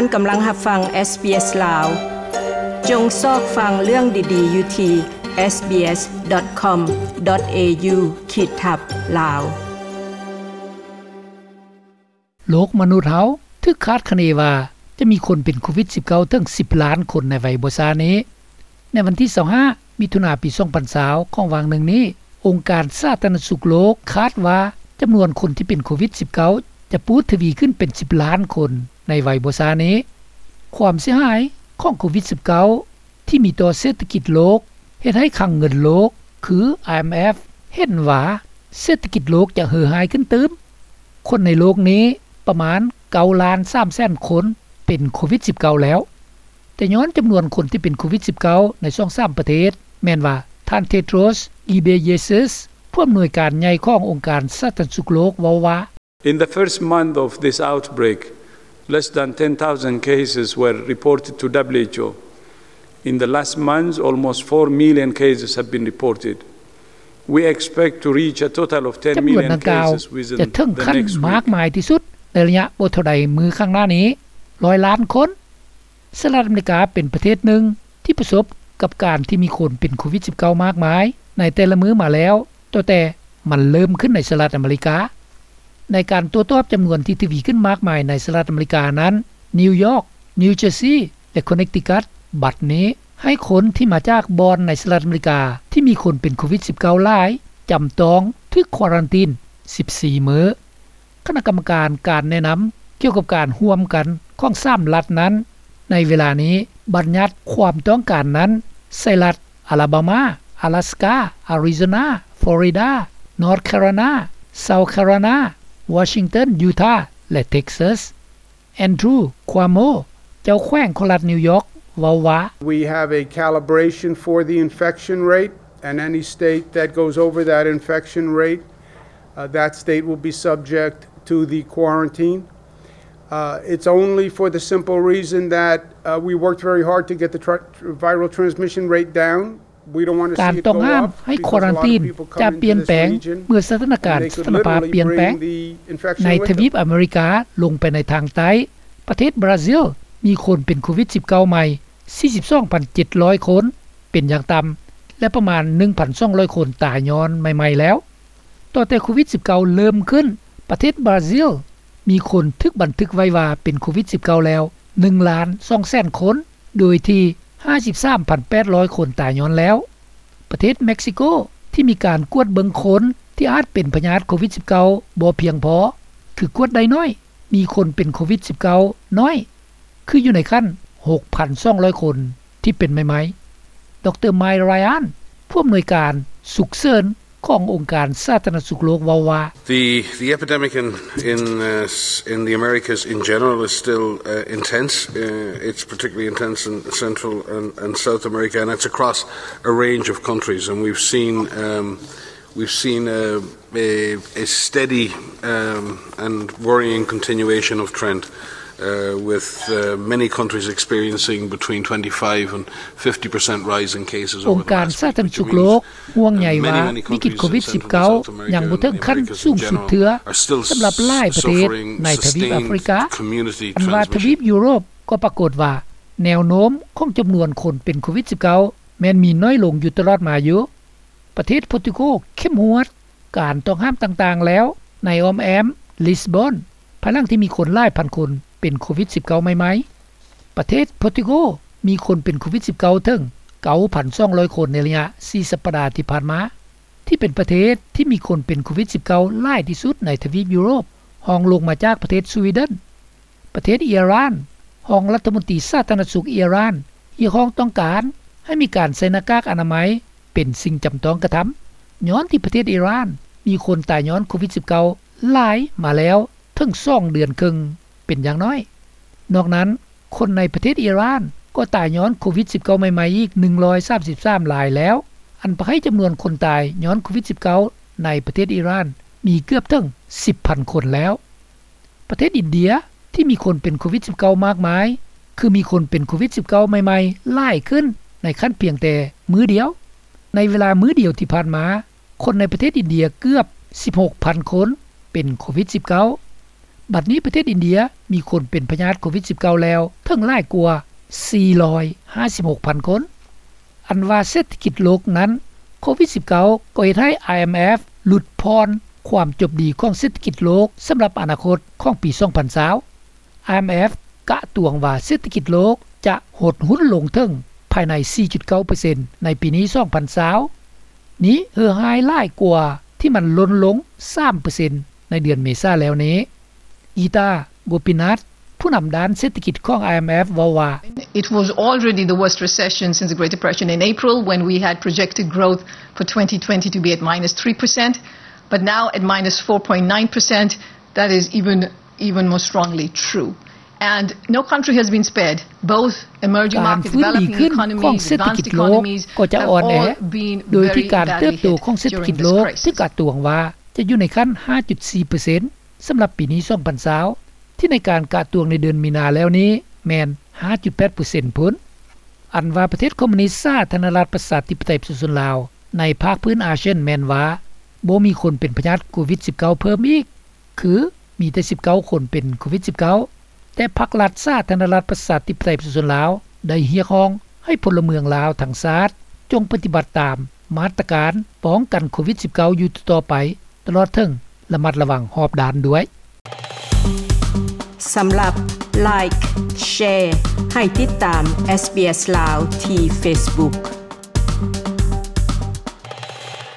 ທ່ານກຳລັງຮັບຟັງ SBS ລາວ. ຈົ່ງຊອກຟັງເລື່ອງດີໆຢູ່ທີ່ SBS.com.au ຂີດທັບ ລາວ. ໂລກມະນຸດເຮົາຖືກຄາດຄະເນວ່າຈະມີຄົນເປັນໂຄວິດ-19 ເຖິງ ສິບລ້ານຄົນໃນໄວບໍ່ຊ້ານີ້. ໃນວັນທີ 25 ມິຖຸນາ ປີ 2020 ຂອງຫວ່າງໜຶ່ງນີ້, ອົງການສາທາລະນະສຸກໂລກຄາດວ່າຈຳນວນຄົນທີ່ເປັນໂຄວິດ-19 ຈະປູດທະວີຂຶ້ນເປັນ ສິບລ້ານຄົນໃນໄວບໍ່ຊ້ານີ້. ຄວາມເສຍຫາຍຂອງໂຄວິດ-19 ທີ່ມີຕໍ່ເສດຖະກິດໂລກ ເຮັດໃຫ້ຄັງເງິນໂລກ ຄື IMF ເຫັນວ່າເສດຖະກິດໂລກຈະເຫີຮ້າຍຂຶ້ນຕື່ມ. ຄົນໃນໂລກນີ້ປະມານ 9 ລ້ານ 3 ແສນຄົນເປັນໂຄວິດ-19 ແລ້ວ. ແຕ່ຍ້ອນຈຳນວນຄົນທີ່ເປັນໂຄວິດ-19 ໃນຊ່ອງສາມປະເທດ ແມ່ນວ່າ ທ່ານ Tedros Ghebreyesus ຜູ້ອຳນວຍການໃຫຍ່ຂອງອົງການສາທາລະນະສຸກໂລກ ເວົ້າວ່າ In the first month of this outbreak, less than ten thousand cases were reported to WHO. In the last month, almost four million cases have been reported. We expect to reach a total of ten million cases within the next week. ຈຳນວນດັ່ງກ່າວຈະເຖິງຂັ້ນມາກມາຍທີ່ສຸດໃນໄລຍະບໍ່ເທົ່າໃດມື້ຂ້າງໜ້ານີ້ ຮ້ອຍລ້ານຄົນ. ສະຫະລັດອາເມລິກາເປັນປະເທດໜຶ່ງທີ່ປະສົບກັບການທີ່ມີຄົນເປັນໂຄວິດ-19 ມາກມາຍໃນແຕ່ລະມື້ມາແລ້ວ ຕັ້ງແຕ່ມັນເລີ່ມຂຶ້ນໃນສະຫະລັດອາເມລິກາ. ໃນການຕົວຈອບຈຳນວນທີ່ທະວີຂຶ້ນມາກມາຍໃນສະຫະລັດອາເມລິການັ້ນ, ນິວຢອກ, ນິວເຈີຊີ ແລະ ຄົນເນັກຕິກັດ ບັດນີ້ໃຫ້ຄົນທີ່ມາຈາກບ່ອນໃນສະຫະລັດອາເມລິກາທີ່ມີຄົນເປັນໂຄວິດ-19 ຫຼາຍ ຈຳຕ້ອງຖືກຄວາຣັນຕີນ ສິບສີ່ ມື້. ຄະນະກຳມະການການແນະນຳກ່ຽວກັບການຮ່ວມກັນຂອງສາມລັດນັ້ນ ໃນເວລານີ້ບັນຍັດຄວາມຕ້ອງການນັ້ນໃສ່ລັດ ອາລາບາມາ, ອາລາສກາ, ອາຣິໂຊນາ, ຟລໍຣິດາ, ນອດແຄໂຣໄລນາ, ເຊົາແຄໂຣໄລນາ, ວໍຊິງຕັນ, ຢູທາ ແລະ ເທັກຊັສ. ແອນດຣູ ຄວາໂມ ເຈົ້າແຂວງຂອງລັດນິວຢອກ ເວົ້າວ່າ We have a calibration for the infection rate, and any state that goes over that infection rate, uh, that state will be subject to the quarantine. Uh, it's only for the simple reason that, uh, we worked very hard to get the tr-, viral transmission rate down. ການຕ້ອງຫ້າມໃຫ້ຄວາຣັນຕີນຈະປ່ຽນແປງເມື່ອສະຖານະການສະຖານະພາບປ່ຽນແປງ. ໃນທະວີບອາເມລິກາລົງໄປໃນທາງໃຕ້, ປະເທດບຣາຊິລມີຄົນເປັນໂຄວິດ-19 ໃໝ່ ສີ່ສິບສອງພັນເຈັດຮ້ອຍຄົນເປັນຢ່າງຕ່ຳ ແລະ ປະມານ ໜຶ່ງພັນສອງຮ້ອຍຄົນຕາຍຍ້ອນໃໝ່ໆແລ້ວ. ຕັ້ງແຕ່ໂຄວິດ-19 ເລີ່ມຂຶ້ນ, ປະເທດບຣາຊິລມີຄົນຖືກບັນທຶກໄວ້ວ່າເປັນໂຄວິດ-19 ແລ້ວ ໜຶ່ງລ້ານສອງແສນຄົນ ໂດຍທີ່ ຫ້າສິບສາມພັນແປດຮ້ອຍຄົນຕາຍຍ້ອນແລ້ວ. ປະເທດເມັກຊິໂກທີ່ມີການກວດເບິ່ງຄົນທີ່ອາດເປັນພະຍາດໂຄວິດ-19 ບໍ່ພຽງພໍ ຄືກວດໄດ້ໜ້ອຍ, ມີຄົນເປັນໂຄວິດ-19 ໜ້ອຍ ຄືຢູ່ໃນຂັ້ນ ຫົກພັນສອງຮ້ອຍຄົນທີ່ເປັນໃໝ່ໆ. ດຣ ໄມລຣາຍອັນ ຜູ້ອຳນວຍການສຸກເສີນຂອງອົງການສາທາລະນະສຸກໂລກເວົ້າວ່າ The, the epidemic in, in, uh, s-, in the Americas in general is still, uh, intense. Uh, it's particularly intense in Central and, and South America, and it's across a range of countries. And we've seen, um, we've seen a, a, a steady, um, and worrying continuation of trend, uh, with, uh, many countries experiencing between twenty-five and fifty percent rise in cases over the last week, which means ອົງການສາທາລະນະສຸກໂລກຫ່ວງໃຍວ່າວິກິດໂຄວິດ-19 ຍັງບໍ່ເຖິງຂັ້ນສູງສຸດເທື່ອສຳລັບຫຼາຍປະເທດໃນທະວີບອາຟຣິກາ, ອັນວ່າທະວີບຢູໂຣບກໍປາກົດວ່າແນວໂນ້ມຂອງຈຳນວນຄົນເປັນໂຄວິດ-19 ແມ່ນມີໜ້ອຍລົງຢູ່ຕະຫຼອດມາຢູ່. ປະເທດໂປຣຕຸໂກເຂັ້ມງວດການຕ້ອງຫ້າມຕ່າງໆແລ້ວໃນອ້ອມແອ້ມລິສບອນ ພາຍຫຼັງທີ່ມີຄົນຫຼາຍພັນຄົນເປັນໂຄວິດ-19 ໃໝ່ໆ. ປະເທດໂປຣຕຸໂກມີຄົນເປັນໂຄວິດ-19 ເຖິງ ເກົ້າພັນສອງຮ້ອຍຄົນໃນໄລຍະສີ່ສັບປະດາທີ່ຜ່ານມາ, ທີ່ເປັນປະເທດທີ່ມີຄົນເປັນໂຄວິດ-19 ຫຼາຍທີ່ສຸດໃນທະວີບຢູໂຣບ, ຮອງລົງມາຈາກປະເທດສະວີເດັນ. ປະເທດອີຣານ, ຮອງລັດຖະມົນຕີສາທາລະນະສຸກອີຣານຮຽກຮ້ອງຕ້ອງການໃຫ້ມີການໃສ່ໜ້າກາກອະນາໄມເປັນສິ່ງຈຳຕ້ອງກະທຳ, ຍ້ອນທີ່ປະເທດອີຣານມີຄົນຕາຍຍ້ອນໂຄວິດ-19 ຫຼາຍມາແລ້ວເຖິງສອງເດືອນເຄິ່ງເປັນຢ່າງໜ້ອຍ. ນອກນັ້ນ, ຄົນໃນປະເທດອີຣານກໍຕາຍຍ້ອນໂຄວິດ-19 ໃໝ່ໆອີກ ໜຶ່ງຮ້ອຍສາມສິບສາມລາຍແລ້ວ, ອັນພາໃຫ້ຈຳນວນຄົນຕາຍຍ້ອນໂຄວິດ-19 ໃນປະເທດອີຣານມີເກືອບເຖິງ ສິບພັນຄົນແລ້ວ. ປະເທດອິນເດຍທີ່ມີຄົນເປັນໂຄວິດ-19 ມາກມາຍ ຄືມີຄົນເປັນໂຄວິດ-19 ໃໝ່ໆຫຼາຍຂຶ້ນໃນຂັ້ນພຽງແຕ່ມື້ດຽວ. ໃນເວລາມື້ດຽວທີ່ຜ່ານມາ, ຄົນໃນປະເທດອິນເດຍເກືອບ ສິບຫົກພັນຄົນເປັນໂຄວິດ-19. ບັດນີ້ປະເທດອິນເດຍມີຄົນເປັນພະຍາດໂຄວິດ-19 ແລ້ວເຖິງຫຼາຍກວ່າ ສີ່ຮ້ອຍຫ້າສິບຫົກພັນຄົນ. ອັນວ່າເສດຖະກິດໂລກນັ້ນ ໂຄວິດ-19 ກໍເຮັດໃຫ້ IMF ຫຼຸດຜ່ອນຄວາມຈົບດີຂອງເສດຖະກິດໂລກສຳລັບອະນາຄົດຂອງປີ ສອງພັນຊາວ. IMF ກະຕວງວ່າເສດຖະກິດໂລກຈະຫົດຫຸ້ນລົງເຖິງພາຍໃນ ສີ່ຈຸດເກົ້າເປີເຊັນ ໃນປີນີ້ ສອງພັນຊາວ. ນີ້ເຫື່ອຮ້າຍຫຼາຍກວ່າທີ່ມັນຫຼົ່ນລົງ ສາມເປີເຊັນ ໃນເດືອນເມສາແລ້ວນີ້. ກີຕາ ໂກປິນາດ ຜູ້ນຳດ້ານເສດຖະກິດຂອງ IMF ເວົ້າວ່າ It was already the worst recession since the Great Depression in April, when we had projected growth for twenty twenty to be at minus three percent, but now at minus four point nine percent, that is even, even more strongly true. And no country has been spared, both emerging markets, developing economies, advanced economies have all been very badly hit during this crisis. ການຟື້ນດີຂຶ້ນຂອງເສດຖະກິດໂລກກໍຈະອ່ອນແອ ໂດຍທີ່ການເຕີບໂຕຂອງເສດຖະກິດໂລກຖືກກະຕວງວ່າຈະຢູ່ໃນຂັ້ນ ຫ້າຈຸດສີ່ເປີເຊັນ ສຳລັບປີນີ້ ສອງພັນຊາວ ທີ່ໃນການກະຕວງໃນເດືອນມີນາແລ້ວນີ້ແມ່ນ ຫ້າຈຸດແປດເປີເຊັນ ພຸ້ນ. ອັນວ່າປະເທດຄອມມູນິດສາທາລະນະລັດປະຊາທິປະໄຕປະຊາຊົນລາວ ໃນພາກພື້ນອາຊຽນແມ່ນວ່າບໍ່ມີຄົນເປັນພະຍາດໂຄວິດ-19 ເພີ່ມອີກ ຄືມີແຕ່ສິບເກົ້າຄົນເປັນໂຄວິດ-19. ແຕ່ພັກລັດສາທາລະນະລັດປະຊາທິປະໄຕປະຊາຊົນລາວ ໄດ້ຮຽກຮ້ອງໃຫ້ພົນລະເມືອງລາວທັງຊາດ ຈົ່ງປະຕິບັດຕາມມາດຕະການປ້ອງກັນໂຄວິດ-19 ຢູ່ຕໍ່ໆໄປ ຕະຫຼອດເຖິງລະມັດລະວັງຮອບດ້ານດ້ວຍ. ສຳລັບ Like Share ໃຫ້ຕິດຕາມ SBS ລາວ ທີ່ Facebook.